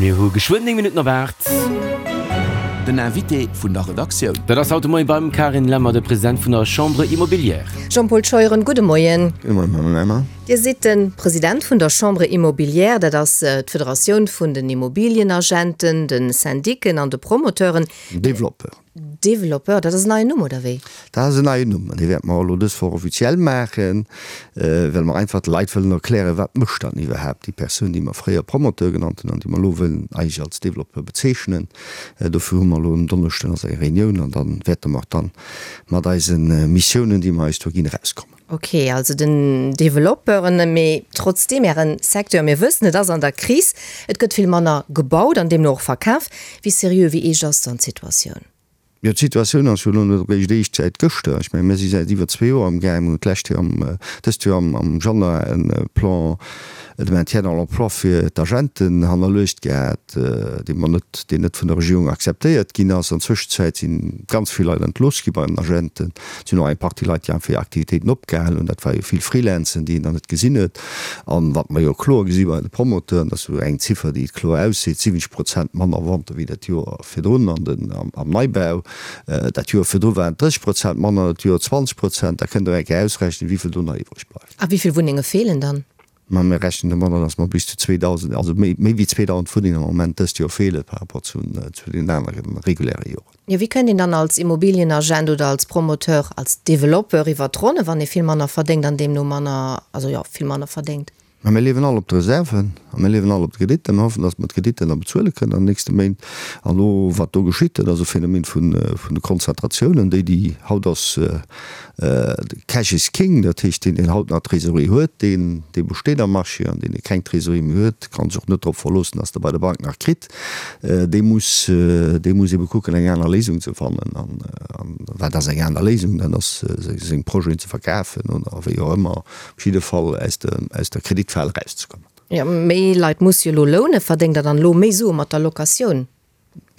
Mir hu geschwënn 9 Minutten op 8. Den Invité vun der Redaktioun. Dat ass haut de Moien beim Carine Lemmer, de President vun der Chambre Immobilière. Jean-Paul Scheuren, gudde Moien. Gudde Moien, Madame Lemmer. Dir sidd de President vun der Chambre Immobilière, dat ass d'Federatioun vun den Immobilienagenten, de Syndiken an de Promoteuren. Développeur. Développeur, dat ass en neien Numm, oder wéi? Dat ass en neien Numm an dee wäerte mer och elo dës Woch offiziell maachen, well mer einfach de Leit wëllen erklären, wat mécht dann iwwerhaapt déi Persoun, déi mer fréier Promoteur genannt hunn an déi mer elo wëllen eigentlech als Développeur bezeechnen. Dofir hu mer elo en Donneschden also eng Reunioun an da wäerte mer och dann mat eise Missiounen, déi mer eis do ginn, erauskommen. Ok, also den Developpeuren, mee trotzdeem, Ären Secteur, mir wëssen, et ass an der Kris, et gëtt vill manner gebaut an deemno och verkaf. Wéi seriö, wéi eescht ass dann d'Situatioun? Jo, d'Situatioun ass jo elo net eréischt eescht säit gëschter. Ech mengen, mir si säit iwwer zwee Joer amgaang. Mir hunn d'lescht Joer am, dëst Joer am Januar e Plan de maintien dans l'emploi fir d'Agenten hannerluecht gehat, dee mer net, deen net vun der Regierung akzeptéiert ginn ass. An Zwëschenzäit si ganz vill Leit entlooss gi bei den Agenten. Et sinn och eng Partie Leit, déi einfach hir Aktivitéiten opgehal hunn. Dat war jo vill Freelancen, déi een dann net gesinn huet. An wat mer jo kloer gesi bei de Promoteuren, dat ass jo eng Ziffer, déi et kloer ausseet, 70 Prozent manner Vente wéi dat Joer virdrun an den, am Neibau. Dat Joer virdru waren et 30 Prozent manner, dat Joer 20 Prozent. Da kënnt Der eng Kéier ausrechnen, wéi vill do nach iwwreg bleift. A wéi vill Wunnenge feelen dann? Mä mir rechnen domadder, datt mer bis zu 2.000, also méi, méi wéi 2.000 Wunnengen am Moment dëst Joer feele par rapport zu, zu den anere reguläre Joren. Jo, wéi kënnt een dann als Immobilienagent oder als Promoteur, als Developpeur iwwert d'Ronne, wann ee vill manner verdéngt an deemno manner, also jo, vill manner verdéngt? Mä mir liewen all op de Reserven a mir liewen all op de Kreditter. Mir hoffen, datt mer d'Kreditter da bezuele kënnen an den nächste Méint. An elo, wat do geschitt, dat ass e Phänomen vun, vun de Konzentratiounen, déi, déi haut ass, Cash is king, dat heescht, deen, deen haut nach Trésorerie huet, deen, dee besteet am Marché, an deen, dee keng Trésorerie méi huet, ka sech och net drop verloossen, dass e bei der Bank nach kritt. Dee muss, dee muss ebe kucken, eng aner Léisung ze fannen. An, an wat ass eng aner Léisung? Dat ass, seng Projeten ze verkafen oder wéi och ëmmer, op jidde Fall aus der, aus der Kreditfal erauszekommen. Jo, méi Leit musse jo elo lounen. Verdéngt Der dann elo méi Sue mat der Locatioun?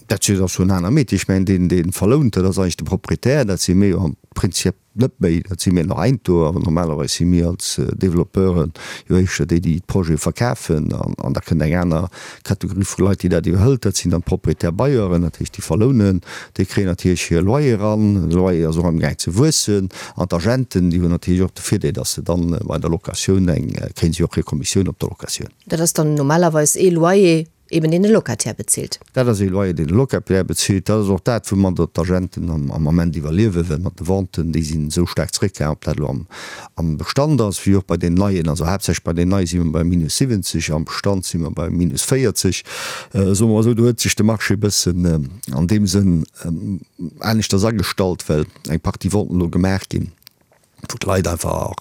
Dat ass jo en aner Métier. Ech mengen, deen, dee verlount, dat ass eigentlech de Proprietär. Dat si mir jo am Prinzip net méi. Dat si mir nach einto. Awer normalerweis si mir als Développeuren jo éischter déi, déi d'Projete verkafen. An da kënnt eng aner Kategorie vu Leit, déi dat iwwerhëlt. Dat sinn dann d'Propriétaires bailleurs, dat heescht, déi verlounen. Déi kréien natierlech hir Loyer eran. De Loyer ass och amgaang ze wuessen. An d'Agenten, déi hunn natierlech och de Virdeel, datt se dann bei der Locatioun eng, kréie si och hir Kommissioun op der Locatioun. Dat ass dann normalerweis ee Loyer Eben deen de Locataire bezilt. Dat ass ee Loyer, deen de Locataire bezilt. Dat ass och dat, woumadder d'Agenten am Ament iwwerliewen, well mat de Venten, déi sinn esou staark zeréckgaangen, ob dat elo am Bestand ass, wéi och bei den Neien. Also haaptsächlech bei den Neie si mer bei minus 70, am Bestand si mer bei minus 40. Soe mer esou, do huet sech de Marché e bëssen an deem Sënn aneschters agestallt, well eng Partie Venten elo gemaach ginn. wou d'Leit einfach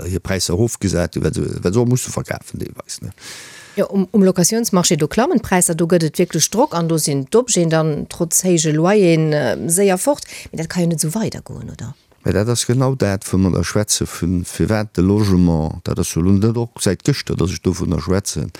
hir Präisser erofgesat hunn, well se, well se och musse verkafen deelweis, ne. Jo, um Locatiounsmarché, do klammen d'Präisser, do gëtt et wierklech Drock an do sinn d'Objeten dann trotz héije Loyeren séier fort. Mee dat ka jo net esou weidergoen, oder? Mä dat ass genau dat, wou mer da schwätze vun, firwat de Logement, dat ass jo elo net och säit gëschter, datt ech dovunner schwätzen,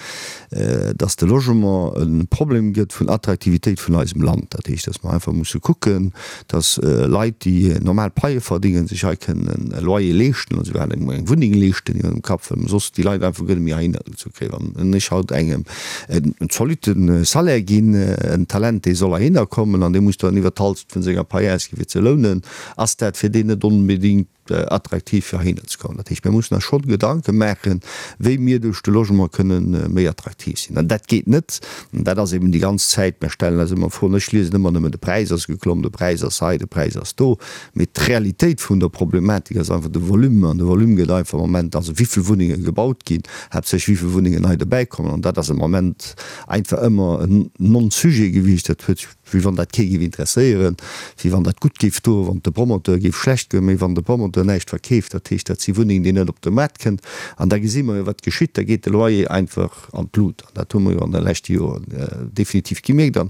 datt de Logement e Problem gëtt vun Attraktivitéit vun eisem Land. Dat heescht, datt mer einfach musse kucken, dass Leit, déi normal Paie verdingen, sech hei kënnen e Loyer leeschten oder souguer eng Wunneng leeschten iwwer dem Kapp, well soss déi Leit einfach guer net méi heihinner gezu kréien. Wann ech haut engem en zolitte Salaire ginn, en Talent, dee soll heihinner kommen an dee muss dann iwwer d'Halschent vun senger Pai ausginn, fir ze lounen, ass dat fir deen net onbedéngt attraktiv fir heihinner ze kommen. Dat heescht, mir mussen eis schonn Gedanke maachen, wéi mir duerch de Logement kënnen méi attraktiv sinn. An dat geet net, an dat ass eben déi ganz Zäit, mir stellen eis ëmmer Froen, ech liesen ëmmer nëmmen, de Präis ass geklomm, de Präis ass hei, de Präis ass do, mee d'Realitéit vun der Problematik ass einfach de Volume, an de Volume gëtt einfach am Moment, also wéi vill Wunnenge gebaut ginn, haaptsächlech wéi vill Wunnengen nei dobäikommen, an dat ass am Moment einfach ëmmer en Non-Sujet gewiescht. Dat huet Wéi wann dat kee géif interesséieren, wéi wann dat gutt géif doen, wann et de Promoteur géif schlecht goen. Mee wann de Promoteur näischt verkeeft, dat heescht, dat si Wunnengen, déi net op de Maart kënnt, an da gesi mer jo, wat geschitt, da geet de Loyer einfach an d'Lut. An dat hu mer jo an de leschte Joren definitiv gemierkt. An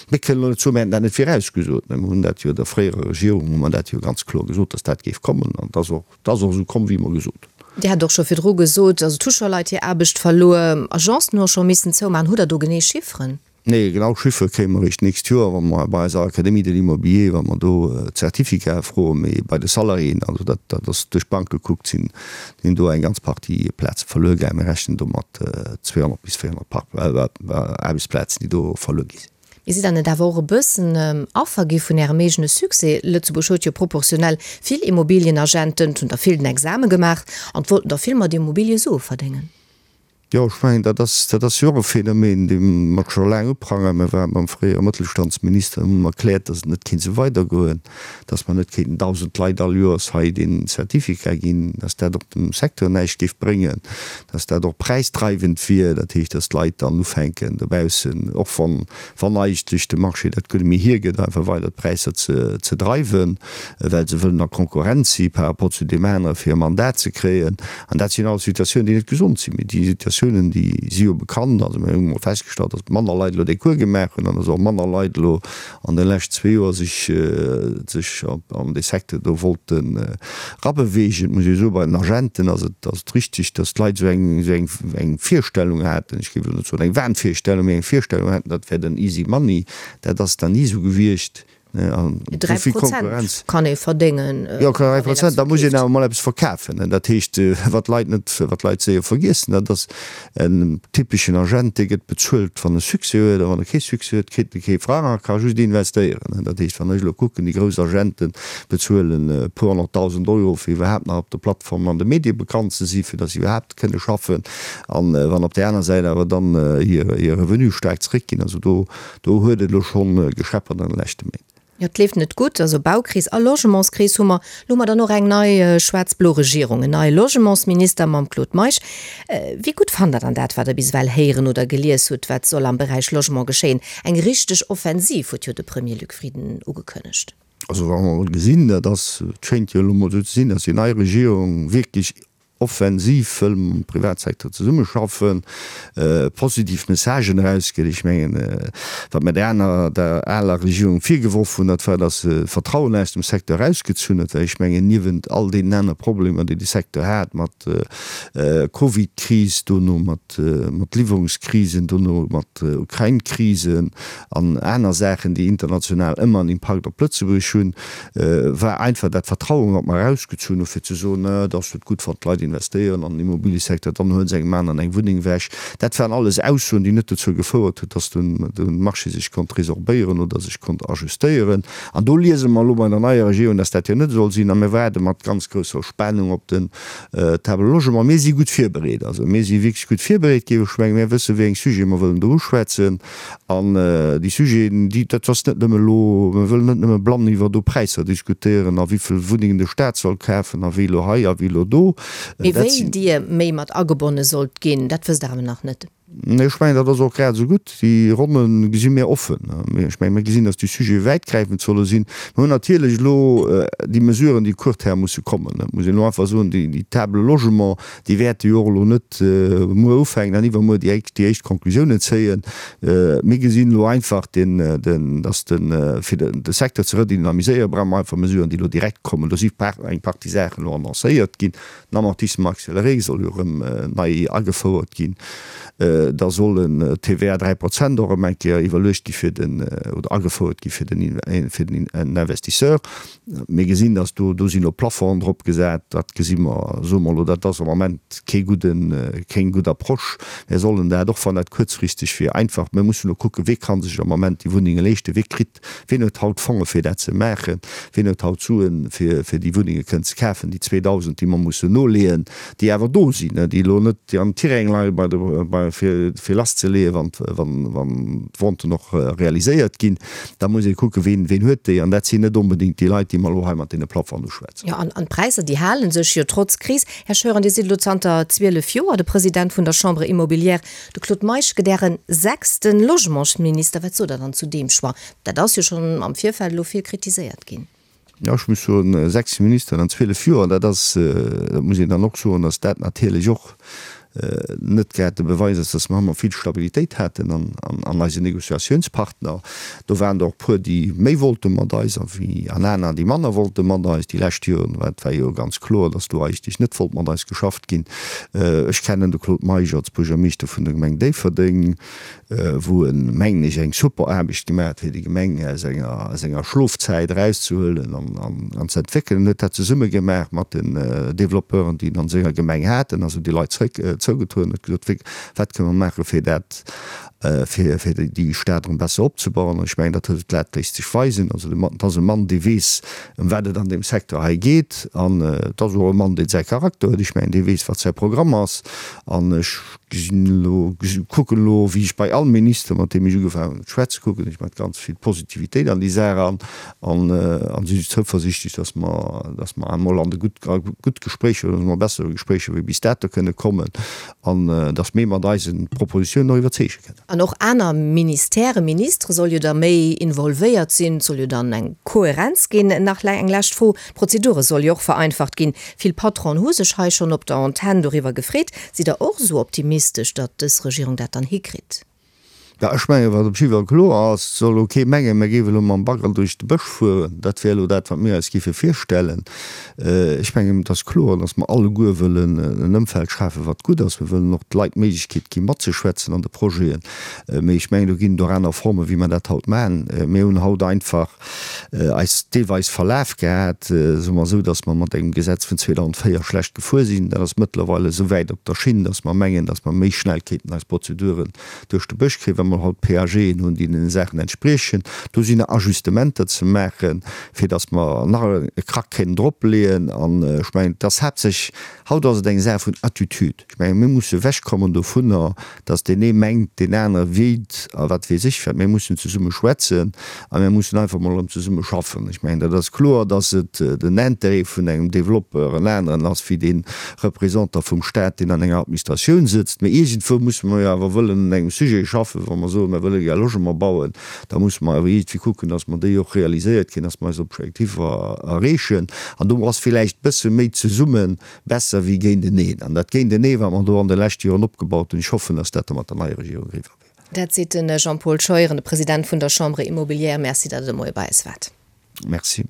mir kënnen elo net soen, mir hätten dat net virausgesot. Mä mir hunn dat jo der fréierer Regierung hu mer dat jo ganz kloer gesot, dass dat géif kommen. An et ass och, et ass och esou komm, wéi mer gesot hunn. Dir hat och scho virdru gesot, also et hu scho Leit hir Aarbecht verluer, Agencen hu och scho missen zoumaachen. Hutt Der do genee Chifferen? Nee, genau Chiffere kréie mer eréischt d'nächst Joer, wa mer bei eiser Académie de l'Immobilier, wa mer do d'Certificate froen. Mee bei de Salariéen, also dat, dat ass duerch d'Bank gekuckt, sinn, sinn do eng ganz Partie Plaze verluer gaangen. Mir rechnen do mat 200 bis 400 Par Aarbechtsplazen, déi do verluer gi sinn. Mee sidd Der net awer och e bëssen Affer gi vun Ärem eegene Succès? Lëtzebuerg huet jo proportionell vill Immobilienagenten, et hunn der vill den Exame gemaach an et wollten der vill mat Immobilie Sue verdéngen. Jo, ech mengen, dat ass, dat ass jo och e Phänomen, dee mer scho laang uprangeren. Mir ware mam fréiere Mëttelstandsminister, hunn him erkläert, datt et net kéint esou weidergoen, datt mer net kéinten 1.000 Leit all Joers hei deen Certificat ginn, datt dat och dem Secteur näischt géif bréngen, datt dat och präisdreiwend wier, dat heescht, datt d'Leit dann ufänken dobaussen, och wann, wann eigentlech de Marché dat guer net méi hiergëtt, einfach weider d'Präisser ze, ze dreiwen, well se wëllen a Konkurrenz si par rapport zu deem anere fir e Mandat ze kréien. An dat sinn alles Situatiounen, déi net gesond sinn. Mee déi Situatiounen, déi si jo bekannt. Also mir hu mol festgestallt, datt manner Leit elo dee Cours gemaach hunn an datt och manner Leit elo an de lescht zwee Joer sech sech an dee Secteur do wollten erabeweegen. Et muss ee soen, bei den Agenten ass et ass et richtig, datt d'Leit esou eng esou eng eng Virstellung haten, ech géif elo net soen eng Wahnvirstellung, mee eng Virstellung haten, dat wär den easy money. Dat ass dann ni esou gewiescht. 3 Prozent kann ee verdéngen. Jo, 3 Prozent, da muss een awer emol eppes verkafen. Dat heescht, wat d'Leit net, wat d'Leit séier vergiessen, dat ass en typeschen Agent, dee gëtt bezuelt, wann e Succès huet, a wann e kee Succès huet, kritt e kee Frang a ka just investéieren. Dat heescht, wann ech elo kucken, déi grouss Agente bezuelen e puer honnertdausend Euro, fir iwwerhaapt nach op de Plattformen an de Medie bekannt ze sinn, fir datt se iwwerhaapt kënne schaffen. A wann op där aner Säit awer dann hir Revenue staark zeréckginn, also do Do huet et elo schonn gescheppert an de leschte Méint. Jo, et leeft net gutt. Also Baukris a Logementskris hu mer. Elo hu mer dann och eng nei schwaarz-blo Regierung, en neie Logementsminister mam Claude Meisch. Wéi gutt fannt Der dann dat, wat Der bis ewell héieren oder gelies hutt, wat soll am Beräich Logement geschéien? Eng richteg Offensiv huet jo de Premier Luc Frieden ugekënnegt. Also wa mer emol gesinn, dat ass, et schéint jo elo emol esou ze sinn, datt déi nei Regierung wierklech offensiv wëll mam Privatsecteur zesummeschaffen, positiv Messagen erausgëtt. Ech mengen, wat mer der aner, der aler Regierung virgeworf hunn, dat war, datt se d'Vertrauen aus dem Secteur erausgezunn huet, well ech mengen, niewent all deenen anere Problemer, déi de Secteur hat, mat Covid-Kris, dono mat Liwwerungskrisen, dono mat Ukrain-Krisen an aner Saachen, déi international ëmmer en Impakt op Lëtzebuerg hunn, war einfach dat Vertrauen, wat mer erausgezunn hu fir ze soen, et ass net gutt, wann d'Leit investéieren an den Immobiliësecteur, dann huele se engem aneren eng Wunneng ewech. Dat waren alles Aussoen, déi net dozou gefouert huet, dass de Marché sech konnt resorbéieren oder sech konnt ajustéieren. An do liese mer elo bei der neier Regierung, dass dat jo net soll sinn. A mir waarde mat ganz grousser Spannung op den Table Logement. Mir si gutt virbereet. Also mir si wierklech gutt virbereet, géif ech mengen. Mir wëssen, wéi eng Sujete mer wëllen do uschwätzen. An déi Sujeten, déi, dat ass net nëmme elo, mir wëllen net nëmme blann iwwer do Präisser diskutéieren a wéivill Wunnengen de Staat soll kafen a wéi elo hei a wéi elo do. Mee wéi Dir méi mat agebonne sollt ginn, dat wësst Der awer nach net. Nee, ech mengen, dat ass och grad esou gutt. Déi Ronne gesi mir offen. Ech mengen, mir gesinn, datt déi Sujete wäitgräifend solle sinn. Mir hunn natierlech elo déi Mesuren, déi court terme musse kommen. Dat muss een elo einfach soen, déi Table Logement, Déi wäerte jo och elo net muer ufänken an iwwermuer déi éischt Conclusiounen zéien. Mir gesinn elo einfach, dass de fir de Secteur ze redynamiséieren, brauche mer einfach Mesuren, déi elo direkt kommen. Do si eng Partie Saachen elo annoncéiert ginn. Den Amortissement accéléré soll jo erëm nei agefouert ginn. Da soll en TVA 3 Prozent och erëm eng Kéier iwwerluecht gi fir den oder agefouert gi fir den fir den Investisseur. Mir gesinn, dass do, do sinn elo Plafonds drop gesat, dat gesi mer, soe mer elo, dat ass am Moment kee gudden, keng gutt Approche. Mir sollen dat, och wann dat kuerzfristeg wier, einfach, mir mussen elo kucken, wee ka sech am Moment déi Wunnenge leeschten, wee kritt, ween huet haut Fonge fir dat ze maachen, ween huet haut Suen, fir, fir déi Wunnenge kënnen ze kafen, déi 2.000, déi mer mussen noleeën, déi awer do sinn, déi elo net am Tiräng leie bei de, bei, fir, fir lasszeleeën, wann, wann, wann d'Venten och realiséiert ginn. Da muss ee kucken, ween, ween huet déi. An dat sinn net onbedéngt déi Leit, déi mer elo hei mat deene Plafonds uschwätzen. Jo, an, an d'Präisser, déi hale sech jo trotz Kris. Här Scheuren, Dir sidd elo zanter 12 Joer de President vun der Chambre immobilière. De Claude Meisch gëtt Äre sechste Logementsminister. Wat sot Der dann zu deem Choix? Dat ass jo schonn am Virfeld elo vill kritiséiert ginn. Jo, ech muss soen, 6 Ministeren an 12 Joer, dat ass, dat muss een dann och soen, datt dat natierlech och. net grad de Beweis ass, dass mer ëmmer vill Stabilitéit haten an eisen Négociatiounspartner. Do waren der och puer, déi méi wollte mat eis a wéi an aner, déi manner wollte mat eis. Déi lescht Joren war et war jo ganz kloer, dass do eigentlech net wollt mat eis geschafft ginn. Ech kennen de Claude Meisch als Buergermeeschter vun der Gemeng Déifferdeng. wou en, mengen ech, eng super Aarbecht gemaach huet, fir déi Gemeng aus enger, aus enger Schlofzäit erauszehuelen an, an, an ze entwéckelen. En huet dat zesumme gemaach mat den Développeuren, déi en an senger Gemeng hat. En ass op déi Leit zréck zougetrueden, huet gesot, wéi, wat kënne mer maachen, fir dat, fir, fir déi Stad erëm besser opzebauen. An ech mengen, dat huet, dat léisst sech weisen. Also de Mann, et ass e Mann, dee weess, ëm wat et an deem Secteur hei geet. An et ass och e Mann, deen säi Charakter huet. Ech mengen, dee weess, wat säi Programm ass. An ech Gesinn elo, kucken elo, wéi ech bei all Minister, mat deem ech ugefaangen hunn ze schwätzen, kucken ech mat ganz vill Positivitéit an déi Saach eran an an si zouversiichtlech, dass mer, dass mer emol an de gutt, a gutt Gespréicher oder emol bessere Gespréicher wéi bis dato kënne kommen an dass mir mat eise Propositionen och iwwerzeege kënnen. An och aner Ministèrë, Ministere soll jo da méi involvéiert sinn, et soll jo dann eng Kohärenz ginn. Nach eng lescht Fro, D'Prozedure soll jo och vereinfacht ginn. Vill Patronen hu sech hei schonn op der Antenn doriwwer gefreet. Sidd Der och esou optimistesch, datt dës Regierung dat dann hikritt? Jo, ech mengen, wat op jidde Fall kloer ass, et soll elo kee mengen, mir géife elo mam Bagger duerch de Bësch fueren. Dat wär elo dat, wat mir eis géife virstellen. Ech mengen, et ass kloer, datt mer alleguer wëllen en Ëmfeld schafen, wat gutt ass. Mir wëllen och de Leit d'Méiglechkeet gi matzeschwätzen an de Projeten. Mee ech mengen, do ginn et och aner Formen, wéi mer dat haut maachen. Mir hunn haut einfach eis deelweis verlaf gehat, soe mer esou, datt mer mat engem Gesetz vun 2004 schlecht gefuer sinn. Dat ass mëttlerweil esou wäit op der Schinn, datt mer mengen, datt mer méi schnell kéinten eis Prozeduren duerch de Bësch kréien, well mer haut PAGen hunn, déi deene Saachen entspriechen. Do sinn nach Ajustementer ze maachen, fir datt mer nach e Krack kéinten dropleeën. An ech mengen, et ass haaptsächlech, haut ass et eng Saach vun Attitude. Ech mengen, mir musse ewechkommen dovunner, dass deen ee mengt, deen anere wéilt a wat weess ech wat. Mir mussen zesumme schwätzen a mir mussen einfach mol erëm zesumme schaffen. Ech mengen, dat ass kloer, dass et den Intérêt vun engem Développeur en aneren ass wéi dee Représentant vum Stat, deen an enger Administratioun sëtzt. Mee iergendwou musse mer jo awer wëllen un engem Sujet schaffen. Wa mer soen, mer wëlle gär Logement bauen, da musse mer awer iergendwéi kucken, dass mer déi och realiséiert kréien, dass mer eis Objektiver erreechen. An do ass villäicht bësse méi zesumme Besser wéi géinteneen. An dat Géintenee, wat mer do an de leschte Joren opgebaut hunn, ech hoffen, dass dat da mat der neier Regierung eriwwer wier. Dat seet de Jean-Paul Scheuren, de President vun der Chambre Immobilière. Merci, datt Der de Moie bei eis waart. Merci.